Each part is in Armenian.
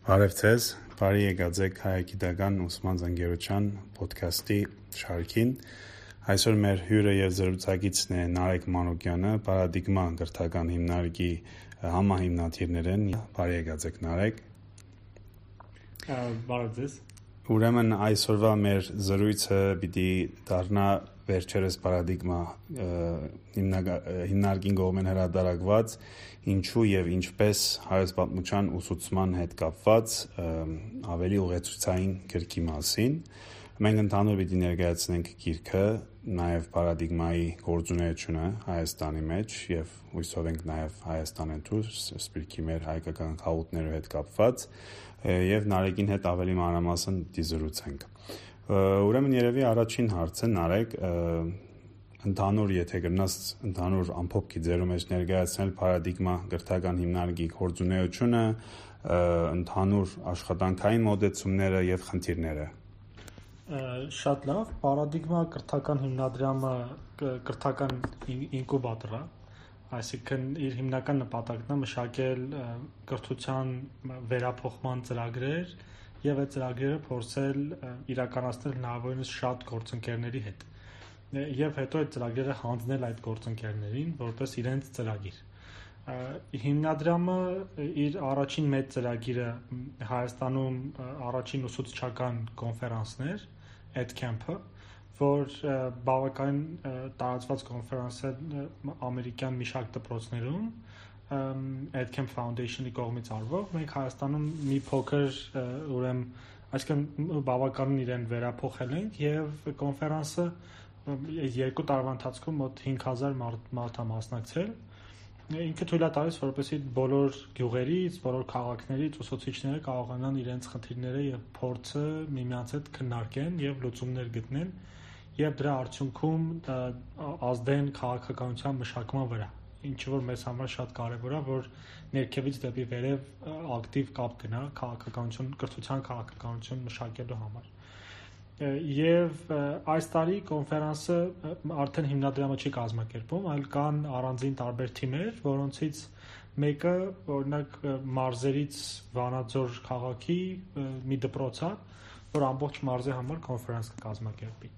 Բարև ձեզ, բարի եկած եք հայագիտական ուսման զանգերության ոդքասթի շարքին։ Այսօր մեր հյուրը եւ զրուցակիցն է Նարեկ Մանուկյանը, Պարադիգմա կրթական հիմնարկի համահիմնադիրներ են։ Բարի եկած եք, Նարեկ։ Բարև ձեզ։ Ուրեմն այսօրվա մեր զրույցը պիտի դառնա վերջերս Պարադիգմա հիմնարկին կողմեն հրատարակված ինչու եւ ինչպես հայոց պատմության ուսուցման հետ կապված ավելի ուղեցույցային գրքի մասին։ Մենք ընդհանուր պիտի ներկայացնենք գիրքը, նաեւ Պարադիգմայի գործունեությունը Հայաստանի մեջ եւ հույսով ենք նաեւ Հայաստանեն դուրս սպիրկի մեր հայկական խաղութներով հետ կապված եւ Նարեկին հետ ավելի մանրամասն պիտի զրուցենք։ Ուրեմն երևի առաջին հարցը Նարեկ ընդհանուր եթե գնաս ընդհանուր ամփոփքի ձեռու մեջ ներկայացնել Պարադիգմա կրթական հիմնարկի գործունեությունը, ընդհանուր աշխատանքային մոտեցումները եւ խնդիրները։ Շատ լավ, Պարադիգմա կրթական հիմնադրամը կրթական ինկուբատոր է, այսինքն իր հիմնական նպատակն է մշակել կրթության վերափոխման ծրագրեր եւ այդ ծրագրերը փորձել իրականացնել հնարավորինս շատ գործընկերների հետ եւ հետո այդ ծրագրերը հանձնել այդ գործընկերներին որպես իրենց ծրագիր։ Հիմնադրամը իր առաջին մեծ ծրագիրը Հայաստանում առաջին ուսուցչական կոնֆերանսն էր, EdCamp-ը, որ բավական տարածված կոնֆերանս է ամերիկյան մի շարք դպրոցներում EdCamp Foundation-ի կողմից արվող։ Մենք Հայաստանում մի փոքր ուրեմն այսինքն բավականին իրեն վերափոխել ենք եւ կոնֆերանսը 2 տարվա ընթացքում մոտ 5000 մարդ է մասնակցել։ Ինքը թույլ է տալիս, որպեսզի բոլոր գյուղերից, բոլոր քաղաքներից ուսուցիչները կարողանան իրենց խնդիրները եւ փորձը միմյանց հետ քննարկեն եւ լուծումներ գտնեն եւ դրա արդյունքում ազդեն քաղաքականության մշակման վրա, ինչը որ մեզ համար շատ կարեւոր է, որ ներքևից դեպի վերև ակտիվ կապ գնա քաղաքականություն, կրթության քաղաքականություն մշակելու համար։ Եվ այս տարի կոնֆերանսը արդեն հիմնադրամը չի կազմակերպում, այլ կան առանձին տարբեր թիմեր, որոնցից մեկը օրինակ մարզերից Վանաձոր քաղաքի մի դպրոց է, որ ամբողջ մարզի համար կոնֆերանս կկազմակերպի։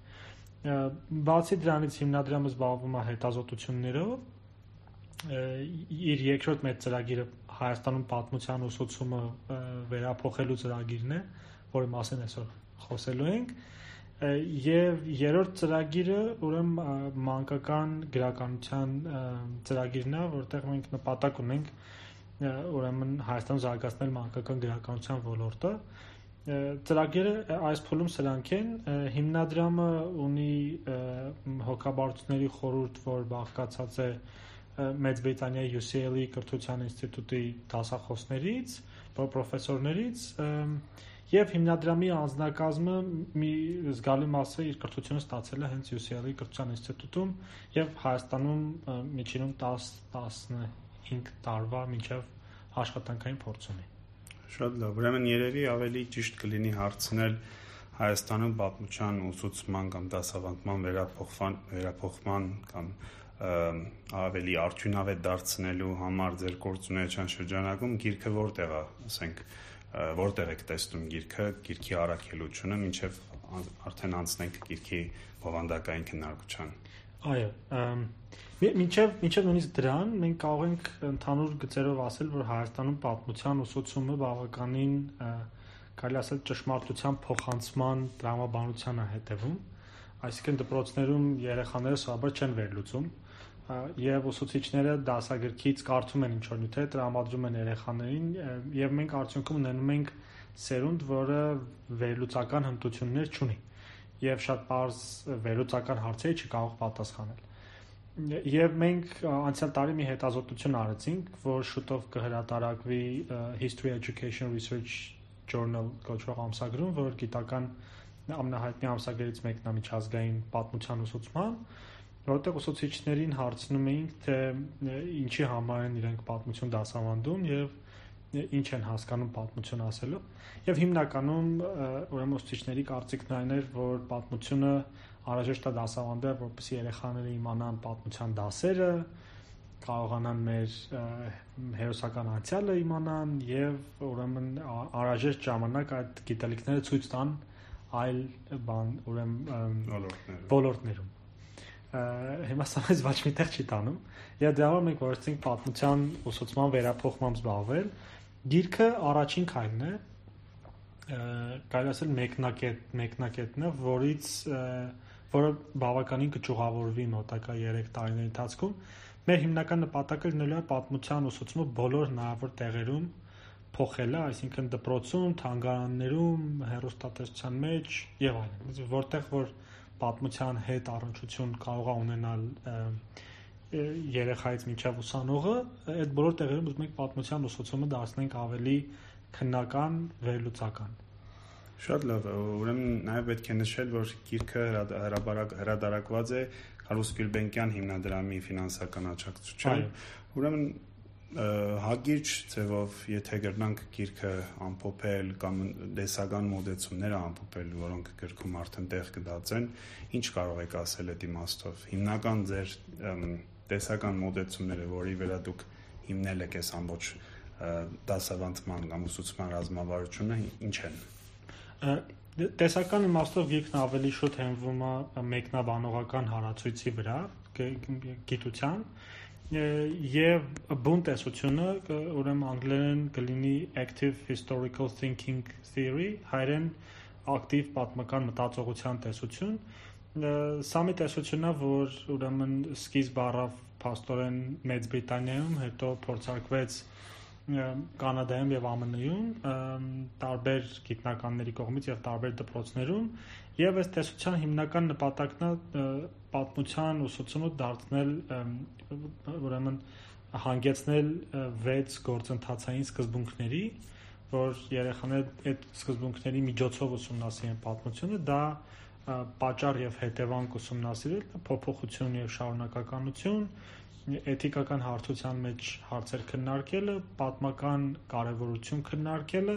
Բացի դրանից հիմնադրամը զբաղվում է հետազոտություններով, իր երկրորդ մեծ ծրագիրը Հայաստանում պատմության ուսուցումը վերափոխելու ծրագիրն է, որի մասին այսօր խոսելու ենք, եւ երրորդ ծրագիրը ուրեմն մանկական գրականության ծրագիրն է, որտեղ մենք նպատակ ունենք ուրեմն Հայաստանում զարգացնել մանկական գրականության ոլորտը։ Ծրագիրը այս փուլում սրանք են, հիմնադրամը ունի հոգաբարձությունների խորհուրդ, որ բաղկացած է Մեծ Բրիտանիայի UCL-ի կրթության ինստիտուտի դասախոսներից, պրոֆեսորներից եւ հիմնադրամի անձնակազմը մի զգալի մասը իր կրթությունը ստացել է հենց UCL-ի կրթության ինստիտուտում եւ Հայաստանում միջինում 10-15 տարվա մինչեւ աշխատանքային փորձ ունի։ Շատ լավ, ուրեմն երևի ավելի ճիշտ կլինի հարցնել Հայաստանում պատմության ուսուցման կամ դասավանդման վերափոխման կամ ավելի արդյունավետ դարձնելու համար ձեր գործունեության շրջանակում գիրքը որտեղ է, ասենք, որտեղ եք տեսնում գիրքի առաքելությունը, մինչև արդեն անցնենք գիրքի բովանդակային քննարկության։ Այո, մինչև նույնիսկ դրան մենք կարող ենք ընդհանուր գծերով ասել, որ Հայաստանում պատմության ուսուցումը բավականին կարելի ասել ճշմարտության փոխանցման տրամաբանության է հետևում, այսինքն դպրոցներում երեխաները սովորաբար չեն վերլուծում եւ ուսուցիչները դասագրքից կարդում են ինչ-որ նյութեր, տրամադրում են երեխաներին եւ մենք արդյունքում ունենում ենք սերունդ, որը վերլուծական հմտություններ չունի եւ շատ պարզ վերլուծական հարցերի չի կարող պատասխանել։ Եվ մենք անցյալ տարի մի հետազոտություն արեցինք, որ շուտով կհրատարակվի History Education Research Journal կոչվող ամսագրում, որ գիտական ամենահայտնի ամսագրերից մեկն է միջազգային պատմության ուսուցման, որտեղ ուսուցիչներին հարցնում էինք, թե ինչի համար են իրենք պատմություն դասավանդում եւ ինչ են հասկանում պատմություն ասելով։ Եվ հիմնականում ուրեմն ուսուցիչների կարծիքն այն էր, որ պատմությունը անհրաժեշտ է դասավանդել, որպեսզի երեխաները իմանան պատմության դասերը կարողանան մեր հերոսական անցյալը իմանան եւ ուրեմն անհրաժեշտ ժամանակ այդ գիտելիքները ցույց տան այլ ոլորտներում։ Հիմա սա մեզ ոչ միտեղ չի տանում։ Եվ դրա համար մենք որոշեցինք պատմության ուսուցման վերափոխմամբ զբաղվել։ Գիրքը առաջին քայլն է, կարելի ասել մեկնակետն է, որը բավականին կճյուղավորվի մոտակա 3 տարիների ընթացքում։ Մեր հիմնական նպատակը լինելու է պատմության ուսուցումը բոլոր հնարավոր տեղերում փոխելը, այսինքն դպրոցում, թանգարաններում, հեռուստատեսության մեջ եւ այլն, որտեղ որ պատմության հետ առնչություն կարող է ունենալ երեխայից մինչև ուսանողը, այդ բոլոր տեղերում ուզում ենք պատմության ուսուցումը դարձնենք ավելի քննական, վերլուծական։ Շատ լավ, ուրեմն նաև պետք է նշել, որ գիրքը հրատարակված է Կարլոս Գյուլբենկյան հիմնադրամի ֆինանսական աջակցությամբ։ Ուրեմն հագիրճ ձևով, եթե գրնանք գիրքը ամփոփել կամ դեսական մոդեցումները ամփոփել, որոնք գրքում արդեն տեղ կդածեն, ինչ կարող եք ասել այդ իմաստով։ Հիմնական ձեր տեսական մոդեցումները, որի վրա դուք հիմնել եք այս ամբողջ դասավանդման կամ ուսուցման ռազմավարությունը, ինչ են։ Տեսական իմաստով գիրքն ավելի շուտ հենվում է մեկնաբանողական հարացույցի վրա, գիտության, եւ բուն տեսությունը, ուրեմն անգլերեն կլինի active historical thinking theory, հայերեն ակտիվ պատմական մտածողության տեսություն։ Սա մի տեսություն է, որ ուրեմն սկիզբ առավ փաստորեն Մեծ Բրիտանիայում, հետո փորձարկվեց Կանադայում եւ ԱՄՆ-ում, տարբեր գիտնականների կողմից եւ տարբեր դպրոցներում, եւ այս տեսության հիմնական նպատակն է պատմության ուսուցումը դարձնել, ուրեմն հանգեցնել 6 գործընթացային սկզբունքների, որ երեխաները այդ սկզբունքների միջոցով ուսումնասիրեն պատմությունը, դա պատճառ եւ հետևանք ուսումնասիրել, փոփոխություն եւ շարունակականություն, էթիկական հարթության մեջ հարցեր քննարկելը, պատմական կարևորություն քննարկելը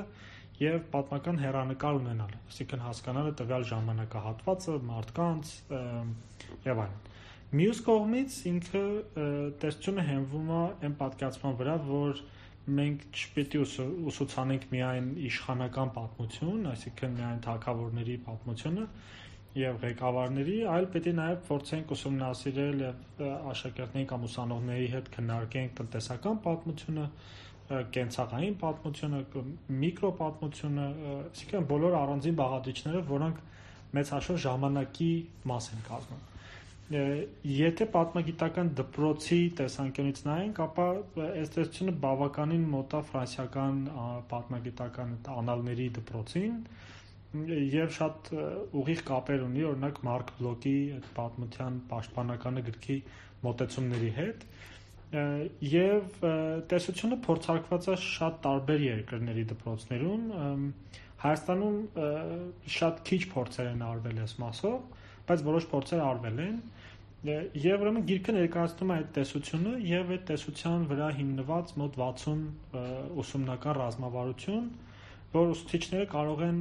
եւ պատմական հեռանկար ունենալը, այսինքն հասկանալը տվյալ ժամանակահատվածը, մարդկանց եւ այլն։ Մյուս կողմից ինքը տեսությունը հենվում է այն պատկերացման վրա, որ մենք չպետք է ուսուցանենք միայն իշխանական պատմություն, այսինքն միայն թագավորների պատմությունը եւ ղեկավարների, այլ պետք է նաեւ փորձենք ուսումնասիրել եւ աշակերտների կամ ուսանողների հետ քննարկենք տնտեսական պատմությունը, կենցաղային պատմությունը, միկրոպատմությունը, այսինքն բոլոր առանձին բաղադրիչները, որոնք մեծ հաշվով ժամանակի մաս են կազմում։ Եթե պատմագիտական դպրոցի տեսանկյունից նայենք, ապա այս տեսությունը բավականին մոտ է ֆրանսիական պատմագիտական անալների դպրոցին եւ շատ ուղիղ կապեր ունի, օրինակ Մարկ Բլոկի այդ պատմության պաշտպանականը գրքի մոտեցումների հետ, եւ տեսությունը փորձարկված է շատ տարբեր երկրների դպրոցներում, Հայաստանում շատ քիչ փորձեր են արվել այս մասով, բայց որոշ փորձեր արվել են, եւ ուրեմն գիրքը ներկայացնում է այդ տեսությունը եւ այդ տեսության վրա հիմնված մոտ 60 ուսումնական ռազմավարություն, որ ուսուցիչները կարող են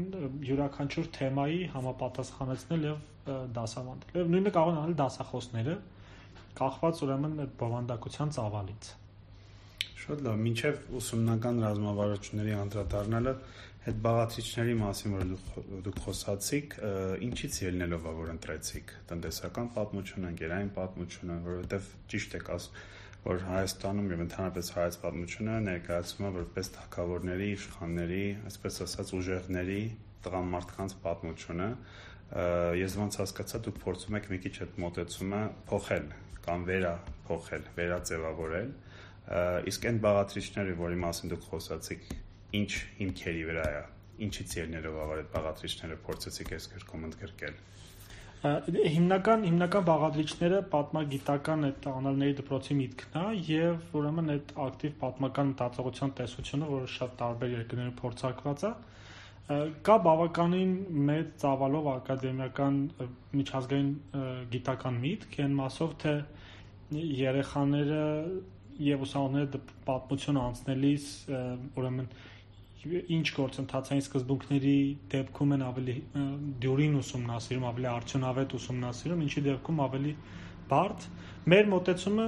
յուրաքանչյուր թեմայի համապատասխանեցնել եւ դասավանդել։ Եվ նույնը կարող են անել դասախոսները, կախված ուրեմն այդ բովանդակության ծավալից։ Շատ լավ, մինչև ուսումնական ռազմավարությունների անդրադառնալը, այդ բաղադրիչների մասին, որ դուք խոսացիք, ինչից ելնելով է, որ ընտրեցիք տնտեսական պատմությունը, ընկերային պատմությունը, որովհետև ճիշտ եք ասում, որ Հայաստանում եւ ընդհանրապես հայոց պատմությունը ներկայացվում է որպես թագավորների, իշխանների, այսպես ասած ուժեղների, տղամարդկանց պատմությունը։ Ես ոնց հասկացա, դուք փորձում եք մի քիչ այդ մոտեցումը փոխել կամ վերափոխել, վերաձևավորել, իսկ այն բաղադրիչները, որի մասին դուք խոսացիք, ինչ հիմքերի վրա է, ինչից ելնելով այդ բաղադրիչները փորձեցիք այս գրքում ընդգրկել։ Հիմնական բաղադրիչները պատմագիտական այդ անալների դպրոցի միտքն է եւ ուրեմն այդ ակտիվ պատմական մտածողության տեսությունը, որը շատ տարբեր երկրներում փորձարկված է, կա բավականին մեծ ծավալով ակադեմիական միջազգային գիտական միտք, այն մասով թե երեխաները եւ ուսանողները պատմություն անցնելիս ուրեմն ինչ գործընթացային սկզբունքների դեպքում են ավելի դյուրին ուսումնասիրում, ավելի արդյունավետ ուսումնասիրում, ինչի դեպքում ավելի բարդ։ Մեր մոտեցումը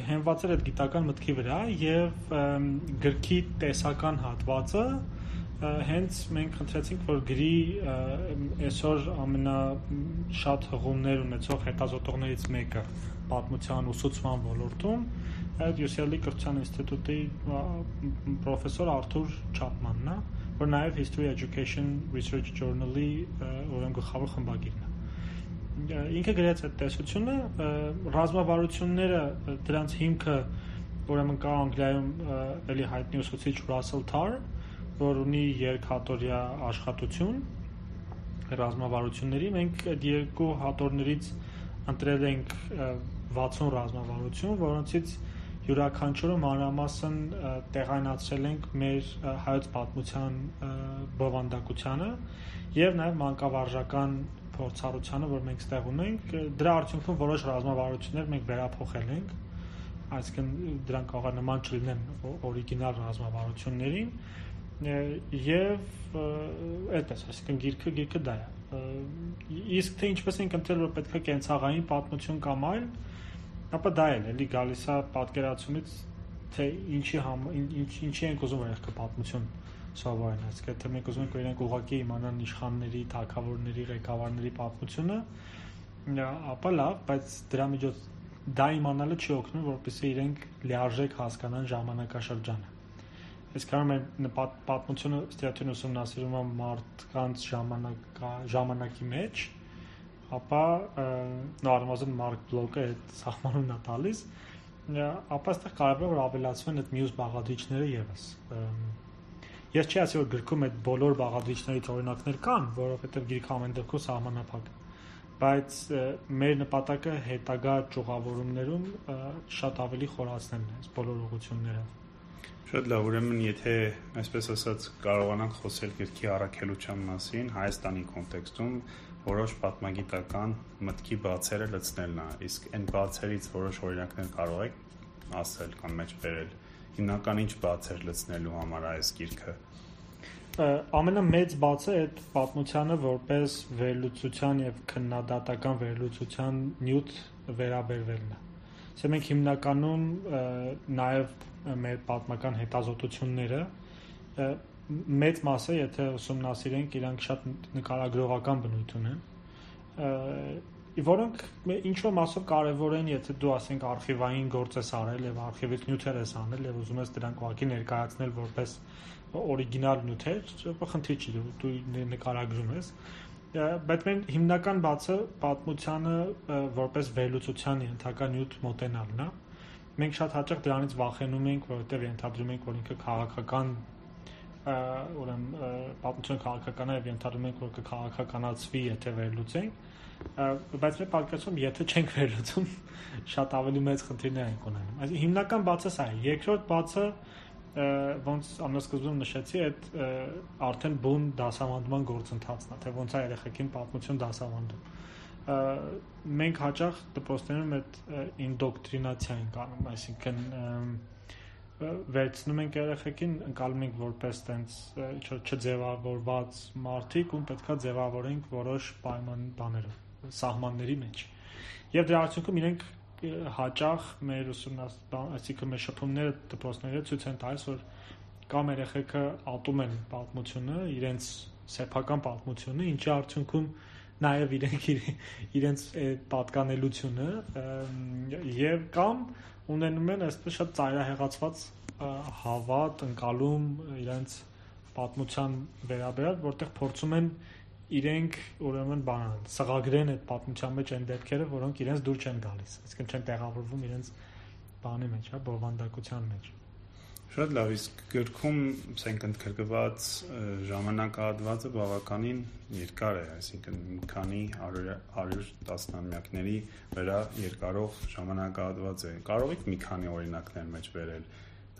հենված էր այդ գիտական մտքի վրա եւ գրքի տեսական հատվածը հենց մենք խնդրեցինք, որ գրի այսօր ամենաշատ հղումներ ունեցող հետազոտողներից մեկը պատմության ուսուցման ոլորտում այդ UCLA կրթության ինստիտուտի պրոֆեսոր Արթուր Չապմանն է, որ նաև History Education Research Journal-ի գլխավոր խմբագիրն է։ Ինքը գրեց այդ տեսությունը, ռազմավարությունները դրանց հիմքը ուրեմն կա Անգլիայում էլի հայտնի ուսուցիչ Russell Tarr, որ ունի երկհատորյա աշխատություն ռազմավարությունների, մենք այդ երկու հատորներից ընտրել ենք 60 ռազմավարություն, որոնցից յուրաքանչյուրը մանրամասն տեղայնացրել ենք մեր հայոց պատմության բովանդակությանը եւ նաեւ մանկավարժական փորձառությանը, որ մենք ստեղ ունենք, դրա արդյունքում որոշ ռազմավարություններ մենք վերափոխել ենք, այսինքն դրանք կարող է նման չլինեն օրիգինալ ռազմավարություններին եւ այդպես, այսինքն գիրքը դա է։ Իսկ թե ինչպես ենք ընտրել, որ պետք է կենցաղային պատմություն կամ այլ, ապա դա էլի գալիս է պատկերացումից, թե ինչի ենք ուզում որ եղքը պատմություն սովորեն, այսինքն թե մենք ուզում ենք որ իրենք ուղղակի իմանան իշխանների, թագավորների, ղեկավարների պատմությունը, ապա լավ, բայց դրա միջոց դա իմանալը չի օգնում, որպեսզի իրենք լիարժեք հասկանան ժամանակաշրջանը։ Իսկ կարողանում են պատմությունը ստիատյուն ուսումնասիրում է մարդկանց ժամանակի մեջ, ապա նորմալորեն Մարկ Բլոկը այդ սահմանումն է տալիս, ապա այստեղ կարևոր է որ ավելացվեն այդ մյուս բաղադրիչները եւս։ Ես չի ասի որ գրքում այդ բոլոր բաղադրիչներից օրինակներ կան, որովհետեւ գիրքը ամեն դեպքում սահմանափակ է, բայց մեր նպատակը հետագա ճյուղավորումներում շատ ավելի խորացնելն է այս բոլոր ուղղությունները։ Շատ լավ, ուրեմն եթե այսպես ասած կարողանանք խոսել գրքի առաքելության մասին Հայաստանի կոնտեքստում, որոշ պատմագիտական մտքի բացերը լցնելն է, իսկ այն բացերից որոշ օրինակներ կարող եք ասել կամ մեջ բերել։ Հիմնական ինչ բացեր լցնելու համար այս գիրքը։ Ամենամեծ բացը այդ պատմությանը որպես վերլուծության եւ քննադատական վերլուծության նյութ վերաբերվելն է։ Սա մենք հիմնականում նաեւ մեր պատմական հետազոտությունները մեծ մասը, եթե ուսումնասիրենք, իրանք շատ նկարագրողական բնույթ ունեն, որոնք ինչ-որ մասով կարևոր են, եթե դու ասենք արխիվային գործ ես արել եւ արխիվից նյութեր ես անել եւ ուզում ես դրանք ուղղակի ներկայացնել որպես օրիգինալ նյութեր, խնդիր չի, դու նկարագրում ես, բայց մենք հիմնական բացը պատմությանը որպես վերլուծության ենթակա նյութ մոտենալն է։ Մենք շատ հաճախ դրանից վախենում ենք, որովհետև ենթադրում ենք, որ ինքը քաղաքական, ուրեմն պատմությունը քաղաքական է եւ ենթադրում ենք, որ կքաղաքականացվի, եթե վերլուծենք, բայց մեր պատկերացում, եթե չենք վերլուծում, շատ ավելի մեծ խնդիրներ ենք ունենում։ Այսինքն հիմնական բացը սա է։ Երկրորդ բացը, ոնց ամենասկզբում նշեցի, այդ արդեն բուն դասավանդման գործընթացն է, թե ոնց է երեխեքին պատմություն դասավանդում։ Մենք հաճախ դպրոցներում այդ ինդոկտրինացիա ենք անում, այսինքն վերցնում ենք երեխեքին, ընկալում ենք որպես տենց չձևավորված մարդիկ, ում պետքա ձևավորենք որոշ պայմաններով, սահմանների մեջ։ Եվ դրա արդյունքում իրենք հաճախ մեր այսինքն մեր շփումները դպրոցները ցույց են տալիս, որ կամ երեխեքը ատում են պատմությունը, իրենց սեփական պատմությունը, ինչի արդյունքում նաև իրենց պատկանելությունը եւ կամ ունենում են այսպես շատ ծայրահեղացված հավատ, ընկալում իրենց պատմության վերաբերյալ, որտեղ փորձում են իրենք ուրեմն սղագրեն այդ պատմության մեջ այն դեպքերը, որոնք իրենց դուր չեն գալիս, այսինքն չեն տեղավորվում իրենց բանի մեջ, բովանդակության մեջ։ Շատ լավ, իսկ գրքում ասենք ընդգրկված ժամանակահատվածը բավականին երկար է, այսինքն մի քանի 100 տասնամյակների վրա երկարող ժամանակահատված է։ Կարող եք մի քանի օրինակներ մեջ բերել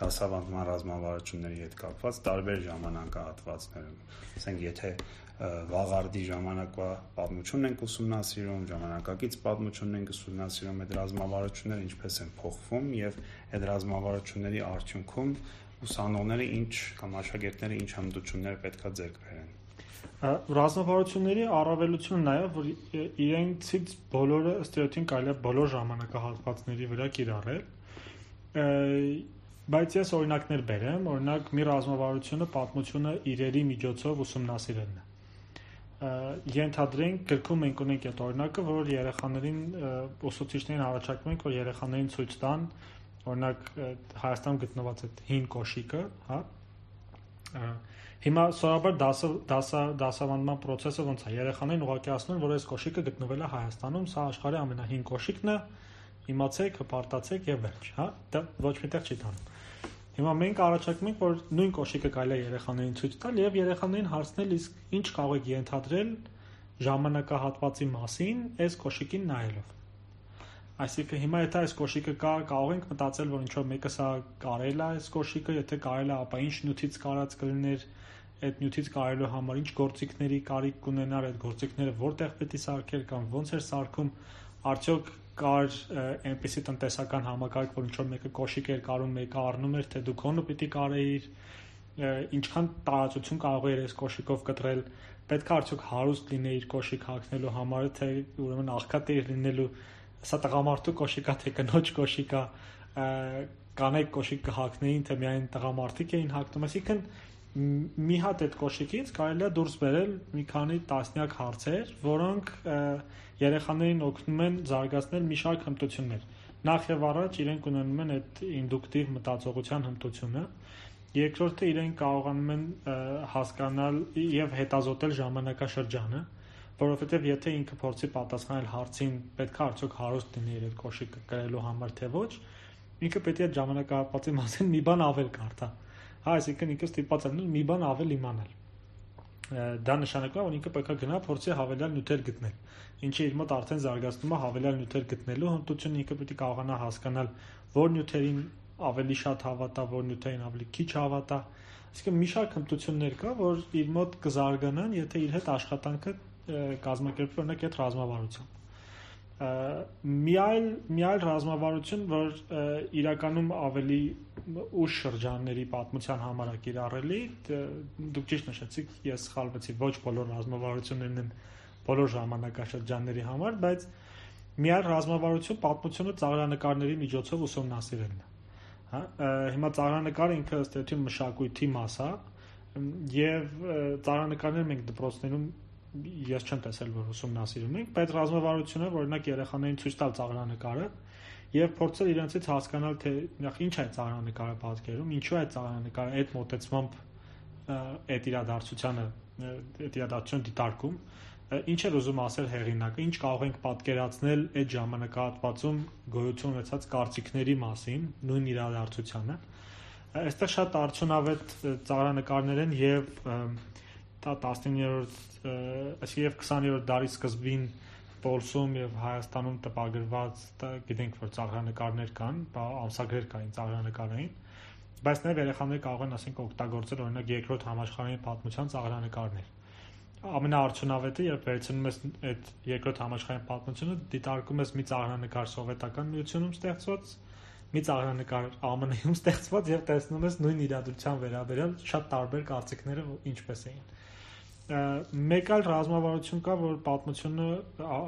դասավանդման ռազմավարությունների հետ կապված տարբեր ժամանակահատվածներում։ Ասենք եթե վաղարդի ժամանակվա պատմությունն ենք ուսումնասիրում, ժամանակակից պատմությունն ենք ուսումնասիրում, այդ ռազմավարությունները ինչպես են փոխվում եւ այդ ռազմավարությունների արդյունքում ուսանողները ինչ կամ աշակերտները ինչ հմտություններ պետքա ձեռք բերեն։ Ռազմավարությունների առավելությունը նաև որ իրենցից բոլորը ըստ էության կարելի է բոլոր ժամանակահատվածների վրա կիրառել, բայց ես օրինակներ բերեմ, օրինակ մի ռազմավարությունը պատմությունը իրերի միջոցով ուսումնասիրելն է։ Ենթադրենք գրքում մենք ունենք այդ օրինակը, որ երեխաներին ուսուցիչներին առաջարկում ենք, որ երեխաներին ցույց տան, օրինակ Հայաստանում գտնված այդ հին կոշիկը, հա։ Հիմա սովորաբար դասավանդման process-ը ոնց է, երեխաներին ուղղակի ասում են, որ այս կոշիկը գտնվել է Հայաստանում, սա աշխարհի ամենահին կոշիկն է, իմացեք, հպարտացեք եւ վերջ, հա, դա ոչ միտեղ չի տանում։ Հիմա մենք առաջարկում ենք, որ նույն կոշիկը կարելի է երեխաներին ցույց տալ եւ երեխաներին հարցնել, իսկ ինչ կարող եք ենթադրել ժամանակահատվածի մասին այս կոշիկին նայելով։ Այսինքն հիմա եթե այս կոշիկը կա, կարող ենք մտածել, որ ինչ որ մեկը սա կարել է այս կոշիկը, եթե կարել է, ապա ինչ նյութից կարած կլիներ, այդ նյութից կարելու համար ինչ գործիքների կարիք կունենար, այդ գործիքները որտեղ պետք է սարքել կամ ոնց էր սարքում, արդյոք կար այնպիսի տնտեսական համակարգ, որ ինչ որ մեկը կոշիկ էր կարում, մեկը առնում էր, թե դու քոնը պիտի կարեիր, ինչքան տարածություն կարող էր այս կոշիկով կտրել, պետք է արդյոք հարուստ լինեիր կոշիկ հագնելու համար, թե ուրեմն աղքատ էր լինելու, սա տղամարդու կոշիկա, թե կնոջ կոշիկա, կանայք կոշիկ կհագնեին, թե միայն տղամարդիկ էին հագնում, այսինքն մի հատ այդ կոշիկից կարելի է դուրս բերել մի քանի տասնյակ հարցեր, որոնք երեխաներին օգնում են զարգացնել մի շարք հմտություններ։ Նախ եւ առաջ իրենք ունենում են այդ ինդուկտիվ մտածողության հմտությունը, երկրորդը իրենք կարողանում են հասկանալ եւ հետազոտել ժամանակաշրջանը, որովհետեւ եթե ինքը փորձի պատասխանել հարցին պետք է արդյոք հարուստ լինի այդ կոշիկը կրելու համար թե ոչ, ինքը պետք է այդ ժամանակահատվածի մասին մի բան ավել կարդա։ Հա, այսինքն ինքը ստիպված է մի բան ավել իմանալ։ Դա նշանակում է, որ ինքը պետք է գնա փորձի հավելյալ նյութեր գտնել, ինչը իր մոտ արդեն զարգացնում է հավելյալ նյութեր գտնելու հմտությունը, ինքը պետք է կարողանա հասկանալ որ նյութերին ավելի շատ հավատա, որ նյութերին ավելի քիչ հավատա։ Այսինքն մի շարք հմտություններ կա, որ իր մոտ կզարգանան, եթե իր հետ աշխատանքը կազմակերպվի օրինակ այդ ռազմավարությամբ։ Մի այլ ռազմավարություն, որ իրականում ավելի ուշ շրջանների պատմության համար է կիրառելի, դուք ճիշտ նշեցիք, ես սխալվեցի, ոչ բոլոր ռազմավարություններն են բոլոր ժամանակաշրջանների համար, բայց մի այլ ռազմավարություն պատմությունը ծաղրանկարների միջոցով ուսումնասիրելն է։ Հա, հիմա ծաղրանկարը ինքը ըստ էության մշակույթի մաս է, եւ ծաղրանկարները մենք դպրոցներում ես չեմ տեսել, որ ուսումնասիրում ենք, բայց ռազմավարությունը, օրինակ երեխաներին ցույց տալ ծաղրանկարը եւ փորձել իրենցից հասկանալ, թե ինչ է ծաղրանկարը պատկերում, ինչու է ծաղրանկարը այդ մոտեցմամբ այդ իրադարձության դիտարկում, ինչ է ուզում ասել հեղինակը, ինչ կարող ենք պատկերացնել այդ ժամանակահատվածում գոյություն ունեցած կարծիքների մասին, նույն իրադարձությանը։ Այստեղ շատ արդյունավետ ծաղրանկարներ են եւ 19-րդ եւ 20-րդ դարի սկզբին Պոլսում եւ Հայաստանում տպագրված, գիտենք, որ ծաղրանկարներ կան, ամսագրեր կային ծաղրանկարային, բայց նաեւ երեխաները կարող են ասենք օգտագործել օրինակ երկրորդ համաշխարհային պատմության ծաղրանկարներ։ Ամենաարդյունավետը, երբ վերցնում ես այդ երկրորդ համաշխարհային պատմությունը, դիտարկում ես մի ծաղրանկար Սովետական Միությունում ստեղծված, մի ծաղրանկար ԱՄՆ-ում ստեղծված եւ տեսնում ես նույն իրադրության վերաբերյալ շատ տարբեր կարծիքները ինչպես էին։ Մեկ այլ ռազմավարություն կա, որ պատմությունը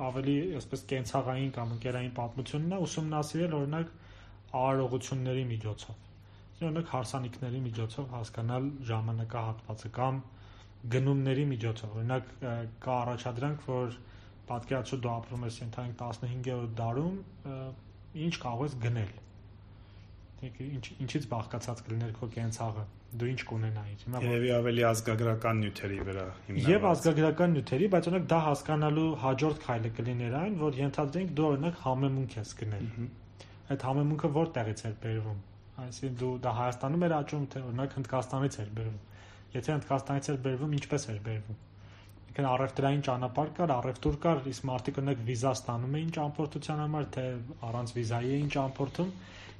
ավելի այսպես կենցաղային կամ ընկերային պատմությունն է ուսումնասիրել օրինակ արարողությունների միջոցով։ Օրինակ հարսանիքների միջոցով հասկանալ ժամանակահատվածը կամ գնումների միջոցով։ Օրինակ կա առաջադրանք, որ պատկերացրու դու ապրում ես ընդհանուր 15-րդ դարում, ինչ կարող ես գնել։ Ինչից բաղկացած կլիներ քո կենցաղը, դու ինչ կունենայիր։ Երևի ավելի ազգագրական նյութերի վրա հիմնված։ Եվ ազգագրական նյութերի, բայց օրինակ դա հասկանալու հաջորդ քայլը կլիներ այն, որ ենթադրենք դու օրինակ համեմունք ես գնել։ Այդ համեմունքը որտեղից էր բերվում։ Այսինքն դու դա Հայաստանում էր աճում, թե օրինակ Հնդկաստանից էր բերվում։ Եթե Հնդկաստանից էր բերվում, ինչպես էր բերվում։ Ինքն առևտրային ճանապարհ կար, առևտուր կար, իսկ մարդիկ օրինակ վիզա ստանում էին ճամփորդության համար, թե առանց վիզայի էին ճամփորդում,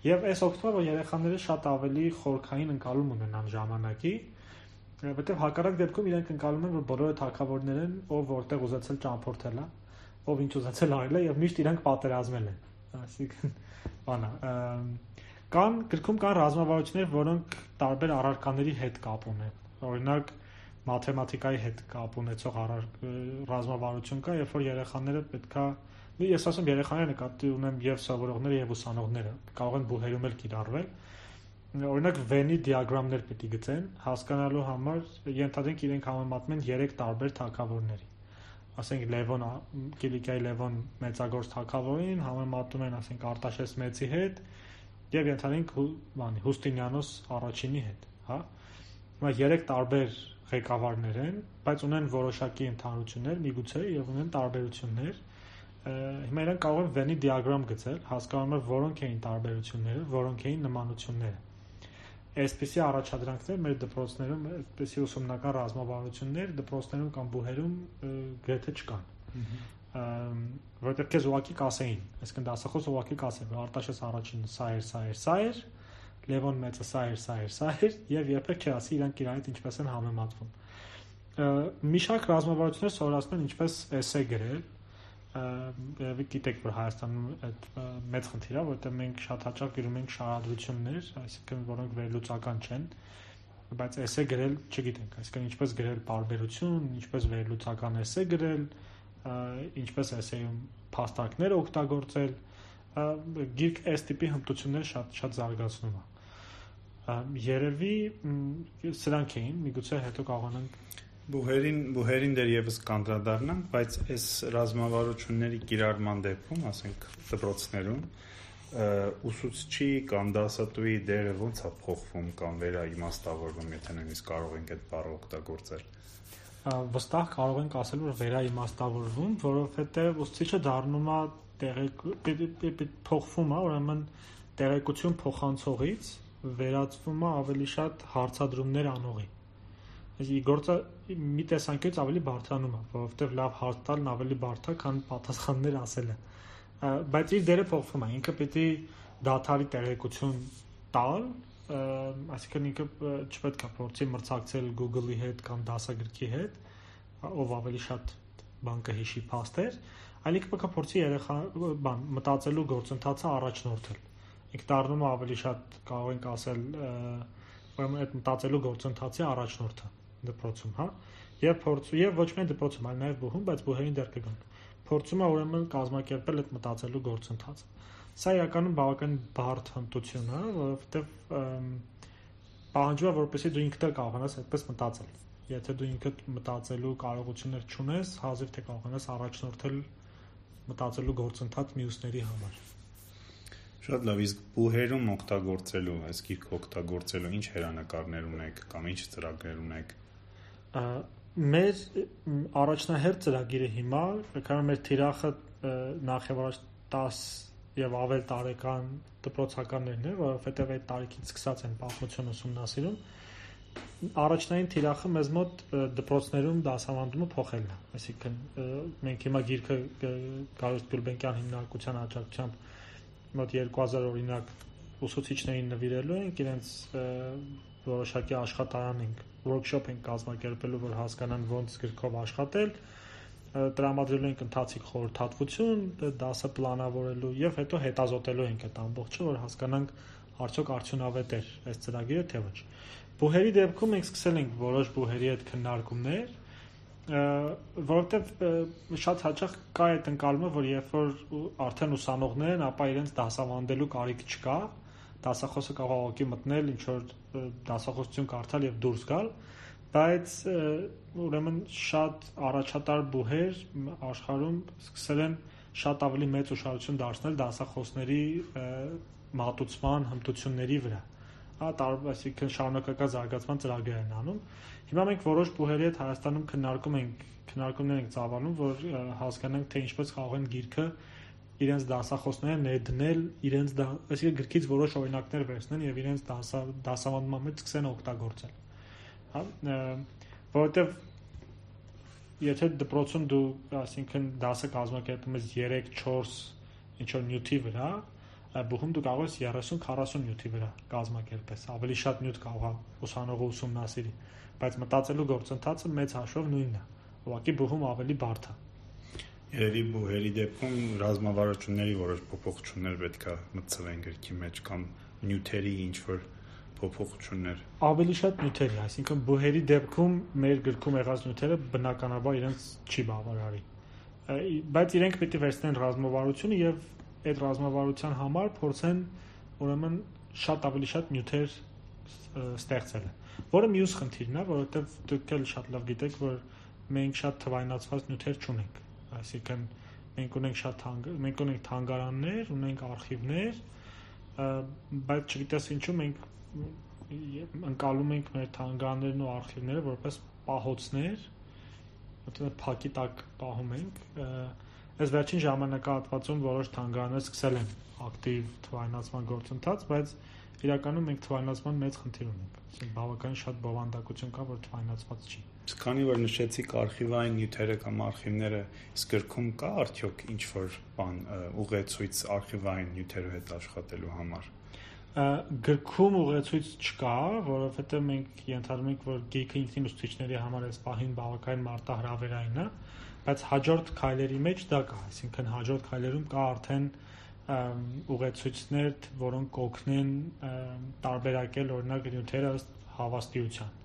եւ այս օգտվում է, որ երեխաները շատ ավելի խորքային ընկալում ունենան ժամանակի, որովհետեւ հակառակ դեպքում իրենք ընկալում են, որ բոլորը թագավորներ են, ով որտեղ ուզեցել ճամփորդել է, ով ինչ ուզեցել արել է եւ միշտ իրենք պատերազմել են։ Այսինքն, բանա, գրքում կան ռազմավարություններ, որոնք տարբեր առարկաների հետ կապ ունեն։ Օրինակ, մաթեմատիկայի հետ կապ ունեցող ռազմավարություն կա, երբ որ երեխաները պետքա, ես ասում երեխաները նկատի ունեմ եւ սովորողները եւ ուսանողները կարող են բուհերում էլ կիրառվել, օրինակ Venn դիագրամներ պետք է գծեն, հասկանալու համար ենթադրենք իրենք համեմատում են 3 տարբեր թագավորների, ասենք Լևոն Կիլիկիայի Լևոն մեծագործ թագավորին համեմատում են, ասենք Արտաշես մեծի հետ եւ ենթադրենք Հուստինիանոս առաջինի հետ, հա։ Հիմա 3 տարբեր ղեկավարներ են, բայց ունեն որոշակի ընդհանրություններ, միգուցե եւ ունեն տարբերություններ։ Հիմա իրենք կարող են Venn դիագրամ գծել, հասկանում են որոնք էին տարբերությունները, որոնք էին նմանությունները։ Այսպիսի առաջադրանքներ մեր դպրոցներում, այսպիսի ուսումնական ռազմավարություններ դպրոցներում կամ բուհերում գրեթե չկան։ Որովհետև քեզ ուղղակի կասեին, այսինքն դասախոս ուղղակի կասեն, որ Արտաշես առաջինը սա էր, Լևոն մեծը սա էր, եւ երբեք չասի իրանք իրար հետ ինչպես են համեմատվում։ Մի շարք ռազմավարություններ սովորացնում են ինչպես էսե գրել, գիտեք, որ Հայաստանում այդ մեծ խնդիր է, որտեղ մենք շատ հաճախ գրում ենք շարադրություններ, այսինքն որոնք վերլուծական չեն, բայց էսե գրել չգիտենք, այսինքն ինչպես գրել պարբերություն, ինչպես վերլուծական էսե գրել, ինչպես էսեյում փաստարկներ օգտագործել, գիրք այս տիպի հմտություններ շատ զարգացնում է։ Երևի սրանք էին, միգուցե հետո կարողանանք Բուհերին դեռևս կանդրադառնանք, բայց այս ռազմավարությունների կիրառման դեպքում, ասենք դպրոցներում, ուսուցչի կամ դասատուի դերը ո՞նց է փոխվում կամ վերաիմաստավորվում, եթե նույնիսկ կարող ենք այդ բառը օգտագործել։ Վստահ կարող ենք ասել, որ վերաիմաստավորվում, որովհետև ուսուցիչը դառնում է փոխվում է, ուրեմն տեղեկություն փոխանցողից վերածվում է ավելի շատ հարցադրումներ անողի։ Գործը մի տեսանկյունից ավելի բարդանում է, որովհետև լավ հարց տալն ավելի բարդ է, քան պատասխաններ ասելը։ Բայց իր դերը փոխվում է, ինքը պիտի դադարի տեղեկություն տալ, այսինքն ինքը չպետք է փորձի մրցակցել Google-ի հետ կամ դասագրքի հետ, ով ավելի շատ բան կհիշի փաստեր, այլ ինքը պետք է փորձի մտածելու գործընթացը առաջնորդել։ Ինքը դառնում է ավելի շատ, կարող ենք ասել, ուրեմն այդ մտածելու գործընթացի առաջնորդը դպրոցում, հա, եւ ոչ միայն դպրոցում, այլ նաեւ բուհում, բայց բուհերին դեռ կգանք։ Փորձում է ուրեմն կազմակերպել այդ մտածելու գործընթացը։ Սա իրականում բավական բարդ հմտություն է, որովհետեւ պահանջում է, որպեսզի դու ինքդ կարողանաս այդպես մտածել։ Եթե դու ինքդ մտածելու կարողություններ չունես, հազիվ թե կարողանաս առաջնորդել մտածելու գործընթաց մյուսների համար։ Շատ լավ, իսկ բուհերում օգտագործելու, այս գիրքը օգտագործելու ինչ հերանեկարներ ունեք կամ ինչ ծրագրեր ունեք։ Մեր առաջնահերթ ծրագիրը հիմա, քանի մեր թիրախը նախ եւ առաջ 10 եւ ավել տարեկան դպրոցականներն են, որովհետեւ այդ տարիքից սկսած են պատմություն ուսումնասիրում, առաջնային թիրախը մեզ մոտ դպրոցներում դասավանդումը փոխելն է, այսինքն մենք հիմա գիրքը Գարուստ Գուլբենկյան հիմնարկության աջակցությամբ մոտ 2000 օրինակ ուսուցիչներին նվիրելու ենք, իրենց որոշակի աշխատարան ենք, workshop ենք կազմակերպելու, որ հասկանան ոնց գրքով աշխատել, տրամադրելու ենք ընթացիկ խորհրդատվություն, դասը պլանավորելու եւ հետո հետազոտելու ենք այդ ամբողջը, որ հասկանանք արդյոք արդյունավետ է այս ծրագիրը թե ոչ։ Բուհերի դեպքում մենք սկսել ենք որոշ բուհերի հետ քննարկումներ, որովհետև շատ հաճախ կա այդ ընկալումը, որ երբ որ արդեն ուսանողներ են, ապա իրենց դասավանդելու կարիք չկա, դասախոսը կարող է մտնել, ինչ որ դասախոսություն կարդալ եւ դուրս գալ, բայց ուրեմն շատ առաջատար բուհեր աշխարհում սկսել են շատ ավելի մեծ ուշադրություն դարձնել դասախոսների մատուցման հմտությունների վրա։ Այսինքն շարունակական զարգացման ծրագրեր են անում։ Հիմա մենք որոշ բուհերի հետ Հայաստանում քննարկումներ ենք ծավալում, որ հասկանանք, թե ինչպես կարող են գիրքը իրենց դասախոսները ներդնել, այսինքն գրքից որոշ օրինակներ վերցնեն եւ իրենց դասավանդման մեջ սկսեն օգտագործել։ Հա, որովհետեւ եթե դպրոցում դու, այսինքն դասը կազմակերպում ես 3-4 ինչ որ նյութի վրա, բուհում դու կարող ես 30-40 նյութի վրա կազմակերպես, ավելի շատ նյութ կարող է ուսանողը ուսումնասիրի, բայց մտածելու գործընթացը մեծ հաշվով նույնն է, ուղղակի բուհում ավելի բարդ է։ Երևի բուհերի դեպքում ռազմավարությունների որոշ փոփոխություններ պետք է մտցվեն գրքի մեջ կամ նյութերի ինչ որ փոփոխություններ։ Ավելի շատ նյութերի, այսինքն բուհերի դեպքում մեր գրքում եղած նյութերը բնականաբար իրենց չի բավարարի։ Բայց իրենք պետք է վերցնեն ռազմավարությունը եւ այդ ռազմավարության համար փորձեն ուրեմն շատ ավելի շատ նյութեր ստեղծել, որը մյուս խնդիրն է, որովհետեւ դուք էլ շատ լավ գիտեք, որ մենք շատ թվայնացված նյութեր չունենք, այսինքն մենք ունենք թանգարաններ, ունենք արխիվներ, բայց չգիտես ինչու մենք ընկալում ենք մեր թանգարաններն ու արխիվները որպես պահոցներ, որտեղ փակի տակ պահում ենք։ Այս վերջին ժամանակահատվածում որոշ թանգարաններ սկսել են ակտիվ թվայնացման գործընթաց, բայց իրականում մենք թվայնացման մեծ խնդիր ունենք։ Այսինքն բավականին շատ բովանդակություն կա, որ թվայնացված չի։ Քանի որ նշեցիք արխիվային նյութերը կամ արխիվները, իսկ գրքում կա արդյոք ինչ-որ բան ուղեցույց արխիվային նյութերով հետ աշխատելու համար։ Գրքում ուղեցույց չկա, որովհետև մենք ենթադրում ենք, որ գիրքը ինքնին ուսուցիչների համար այս պահին բավականին մարտահրավերային է, բայց հաջորդ քայլերի մեջ դա կա, այսինքն հաջորդ քայլերում կա արդեն ուղեցույցներ, որոնք կօգնեն տարբերակել օրինակ նյութերը ըստ հավաստիության։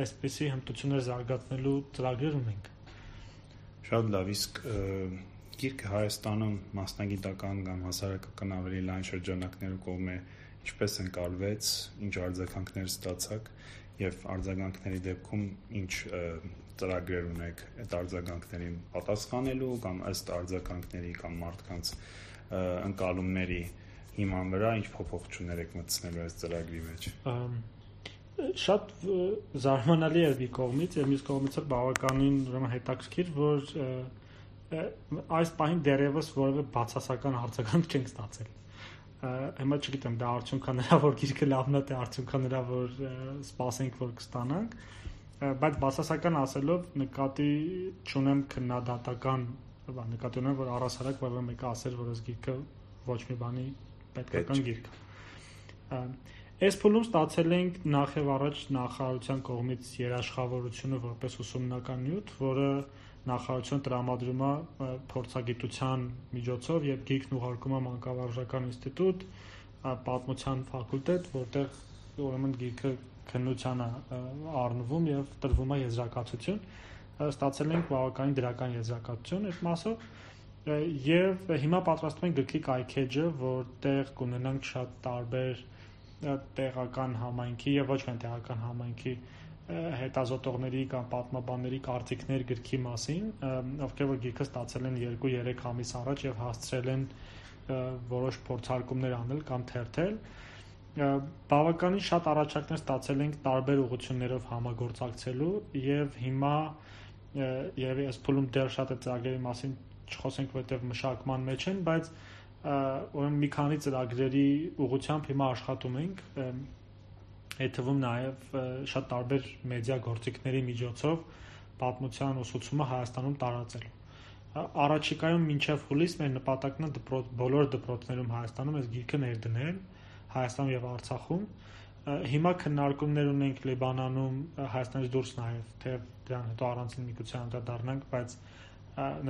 Այսպիսի հմտություններ զարգացնելու ծրագրեր ունենք։ Շատ լավ, իսկ գիրքը Հայաստանում մասնագիտական կամ հասարակական ավելի լայն շրջանակներու կողմէ ինչպես ընկալվեց, ինչ արձագանքներ ստացաք եւ արձագանքների դեպքում ինչ ծրագրեր ունեք այդ արձագանքներին պատասխանելու կամ ըստ արձագանքների կամ մարդկանց ընկալումների հիման վրա ինչ փոփոխություններ եք մտցնելու այս ծրագրի մեջ։ Շատ զարմանալի էր մի կողմից եւ մյուս կողմից էլ բավականին ուրեմն հետաքրքիր, որ այս պահին դեռևս որևէ բացասական արձագանք չենք ստացել։ Հիմա չգիտեմ, դա արդյունքա նրա որ գիրքը լավն է, թե արդյունքա նրա որ սպասենք որ կստանանք, բայց բացասական ասելով նկատի չունեմ քննադատական, նկատի ունեմ որ առասարակ որևէ մեկը ասեր, որ այս գիրքը ոչ մի բանի պետքական գիրք է։ Այս փուլում ստացել ենք նախ եւ առաջ նախարարության կողմից երաշխավորությունը որպես ուսումնական նյութ, որը նախարարությունը տրամադրում է փորձագիտության միջոցով եւ գիրքն ուղարկում է մանկավարժական ինստիտուտ, պատմության ֆակուլտետ, որտեղ ուրեմն գիրքը քննության է առնվում եւ տրվում է եզրակացություն։ Ստացել ենք բավականին դրական եզրակացություն այդ մասով եւ հիմա պատրաստում ենք գրքի կայքեջը, որտեղ կունենանք շատ տարբեր տեղական համայնքի եւ ոչ միայն տեղական համայնքի հետազոտողների կամ պատմաբանների կարծիքներ գրքի մասին, ովքեր որ գիրքը ստացել են 2-3 ամիս առաջ եւ հասցրել են որոշ փորձարկումներ անել կամ թերթել։ Բավականին շատ առաջարկներ ստացել ենք տարբեր ուղղություններով համագործակցելու եւ հիմա եւ այս փուլում դեռ շատ է ծրագրերի մասին չխոսենք, որտեղ մշակման մեջ են, բայց ուրեմն մի քանի ծրագրերի ուղղությամբ հիմա աշխատում ենք, այդ թվում նաև շատ տարբեր մեդիա գործիքների միջոցով պատմության ուսուցումը Հայաստանում տարածելու։ Առաջիկայում մինչև հուլիս մեր նպատակն է բոլոր դպրոցներում Հայաստանում այս գիրքը ներդնել, Հայաստանում եւ Արցախում։ Հիմա քննարկումներ ունենք Լիբանանում, Հայաստանից դուրս նաև, թե դրան հետո առանցին միգուցե անդրադառնանք, բայց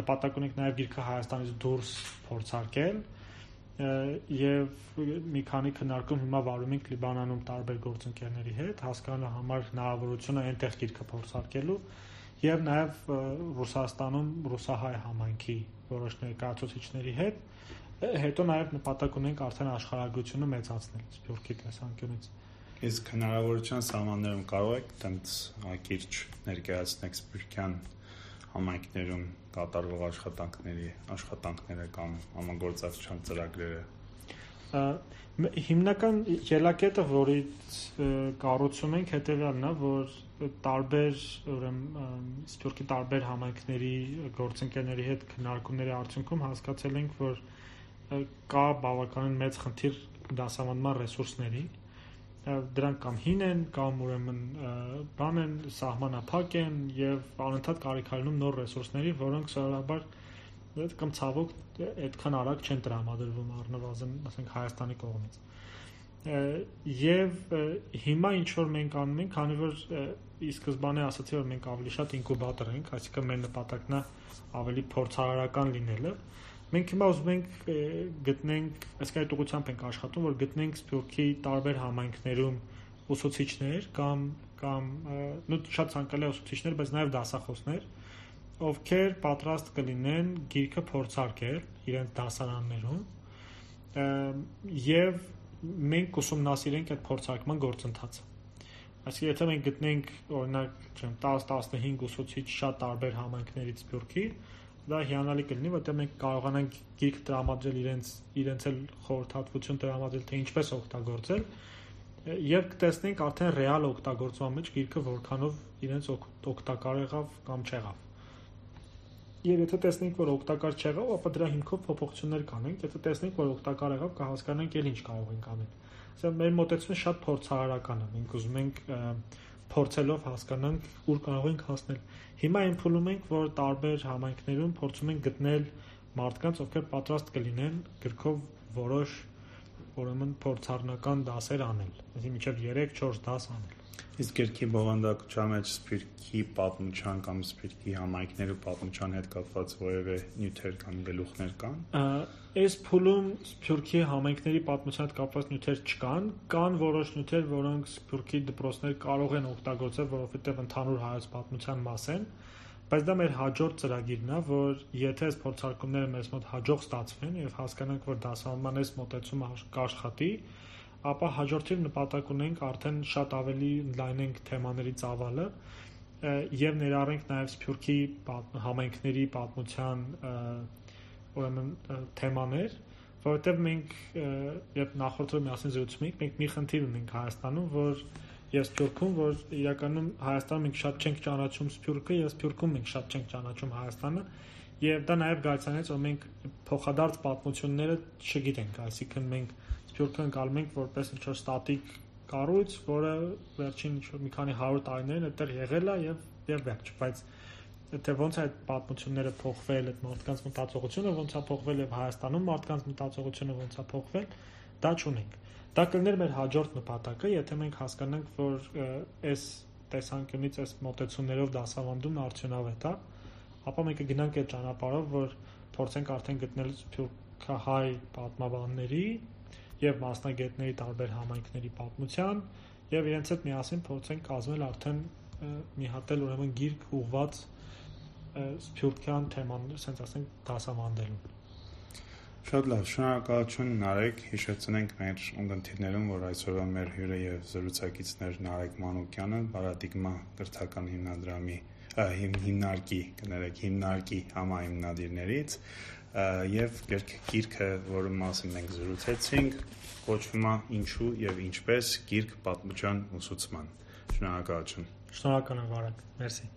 նպատակ ունենք նաև գիրքը Հայաստանից դուրս փորձարկել եւ մի քանի քննարկում հիմա վարում ենք Լիբանանում տարբեր գործընկերների հետ, հասկանալու համար հնարավորությունը այնտեղ գիրքը փորձարկելու եւ նաեւ Ռուսաստանում ռուսահայ համայնքի որոշ ներկայացուցիչների հետ, հետո նաեւ նպատակ ունենք արդեն աշխարհագրությունը մեծացնել Սփյուռքի տեսանկյունից։ Իսկ հնարավորության սահմաններում կարող եք տենց ակիրճ ներկայացնեք սփյուռքյան համայնքներում կատարվող աշխատանքները կամ համագործակցության ծրագրերը։ Հիմնական ելակետը, որից կառուցում ենք, հետևյալն է, որ տարբեր Սփյուռքի տարբեր համայնքների գործընկերների հետ քննարկումների արդյունքում հասկացել ենք, որ կա բավականին մեծ խնդիր դասավանդման ռեսուրսների։ Դրանք կամ հին են, կամ ուրեմն բան են, սահմանափակ են եւ անընդհատ կարիքարանում նոր ռեսուրսների, որոնք սովորաբար կամ ցավոք այդքան արագ չեն տրամադրվում առնվազն, ասենք Հայաստանի կողմից։ Եվ հիմա ինչ որ մենք անում ենք, քանի որ ի սկզբանե ասացի, որ մենք ավելի շատ ինկուբատոր ենք, այսինքն մեր նպատակն է ավելի փորձարարական լինելը։ Մենք հիմա ուզում ենք գտնենք, այսինքն այդ ուղղությամբ ենք աշխատում, որ գտնենք Սփյուռքի տարբեր համայնքներում ուսուցիչներ կամ շատ ցանկալի ուսուցիչներ, բայց նաև դասախոսներ, ովքեր պատրաստ կլինեն գիրքը փորձարկել իրենց դասարաններում եւ մենք ուսումնասիրենք այդ փորձարկման գործընթացը։ Այսինքն, եթե մենք գտնենք օրինակ 10-15 ուսուցիչ շատ տարբեր համայնքներից Սփյուռքի, դա հիանալի կլինի, որտեղ մենք կարողանանք գիրք տրամադրել իրենց էլ խորհրդատվություն տրամադրել, թե ինչպես օգտագործել, եւ կտեսնենք արդեն ռեալ օգտագործման մեջ գիրքը որքանով իրենց օգտակար եղավ կամ չեղավ։ Եվ եթե տեսնենք, որ օգտակար չեղավ, ապա դրա հիմքով փոփոխություններ կանենք, եթե տեսնենք, որ օգտակար եղավ, կհասկանանք էլ ինչ կարող ենք անել։ Այսինքն մեր մոտեցումը շատ փորձարարական է։ Մենք ուզում ենք փորձելով հասկանանք ուր կարող ենք հասնել։ Հիմա այն փուլում ենք, որ տարբեր համայնքներում փորձում ենք գտնել մարդկանց, ովքեր պատրաստ կլինեն գրքով որոշ ուրեմն փորձառնական դասեր անել, այսինքն մինչև 3-4 դաս անել։ Իսկ գրքի բովանդակության մեջ Սփյուռքի պատմության կամ Սփյուռքի համայնքների պատմության հետ կապված որևէ նյութեր կամ գլուխներ կան։ Այս փուլում Սփյուռքի համայնքների պատմության հետ կապված նյութեր չկան, կան որոշ նյութեր, որոնք Սփյուռքի դպրոցներ կարող են օգտագործել, որովհետև ընդհանուր հայոց պատմության մաս են, բայց դա մեր հաջորդ ծրագիրն է, որ եթե այս փորձարկումները մեզ մոտ հաջող ստացվեն եւ հասկանանք, որ դասավանդման այս մոտեցումը կաշխատի, ապա հաջորդիվ նպատակ ունենք արդեն շատ ավելի ընդլայնենք թեմաների ծավալը եւ ներառենք նաեւ Սփյուռքի համայնքների պատմության ուրեմն թեմաներ, որովհետեւ մենք երբ նախորդը միասին զրուցում ենք, մենք մի խնդիր ունենք Հայաստանում, որ եւ Սփյուռքում, որ իրականում Հայաստանում մենք շատ չենք ճանաչում Սփյուռքը եւ Սփյուռքում մենք շատ չենք ճանաչում Հայաստանը եւ դա նաեւ գայցանեց, որ մենք փոխադարձ պատմությունները չգիտենք, այսինքն մենք Սփյուռքը ընկալում ենք որպես ինչ-որ ստատիկ կառույց, որը վերջին մի քանի 100 տարիներին այդտեղ եղել է եւ վերջ, բայց թե ոնց է այդ պատմությունները փոխվել, այդ մարդկանց մտածողությունը ոնց է փոխվել եւ Հայաստանում մարդկանց մտածողությունը ոնց է փոխվել, դա չունենք։ Դա կլներ մեր հաջորդ նպատակը, եթե մենք հասկանանք, որ այս տեսանկյունից այս մոտեցումներով դասավանդումն արդյունավետ է, ապա մենք կգնանք այդ ճանապարհով, որ փորձենք արդեն գտնել սփյուռքահայ պատմաբանների եւ մասնագետների տարբեր համայնքների պատմության եւ իրենց հետ միասին փորձենք կազմել արդեն մի հատ էլ ուրեմն գիրք ուղված սփյուռքյան թեման, ասենք ասենք դասավանդելուն։ Շատ լավ, շնորհակալություն Նարեկ, հիշեցնենք մեր ունկնդիրներում, որ այսօրվա մեր հյուրը եւ զրուցակիցներ Նարեկ Մանուկյանը, Պարադիգմա կրթական հիմնադրամի հիմնարկի համահիմնադիրներից եւ գիրքը, որի մասին մենք զրուցեցինք, կոչվում է «Ինչու եւ ինչպես» գիրք պատմության ուսուցման։ Շնորհակալություն։ Շնորհակալ եմ, Վարակ, մերսի։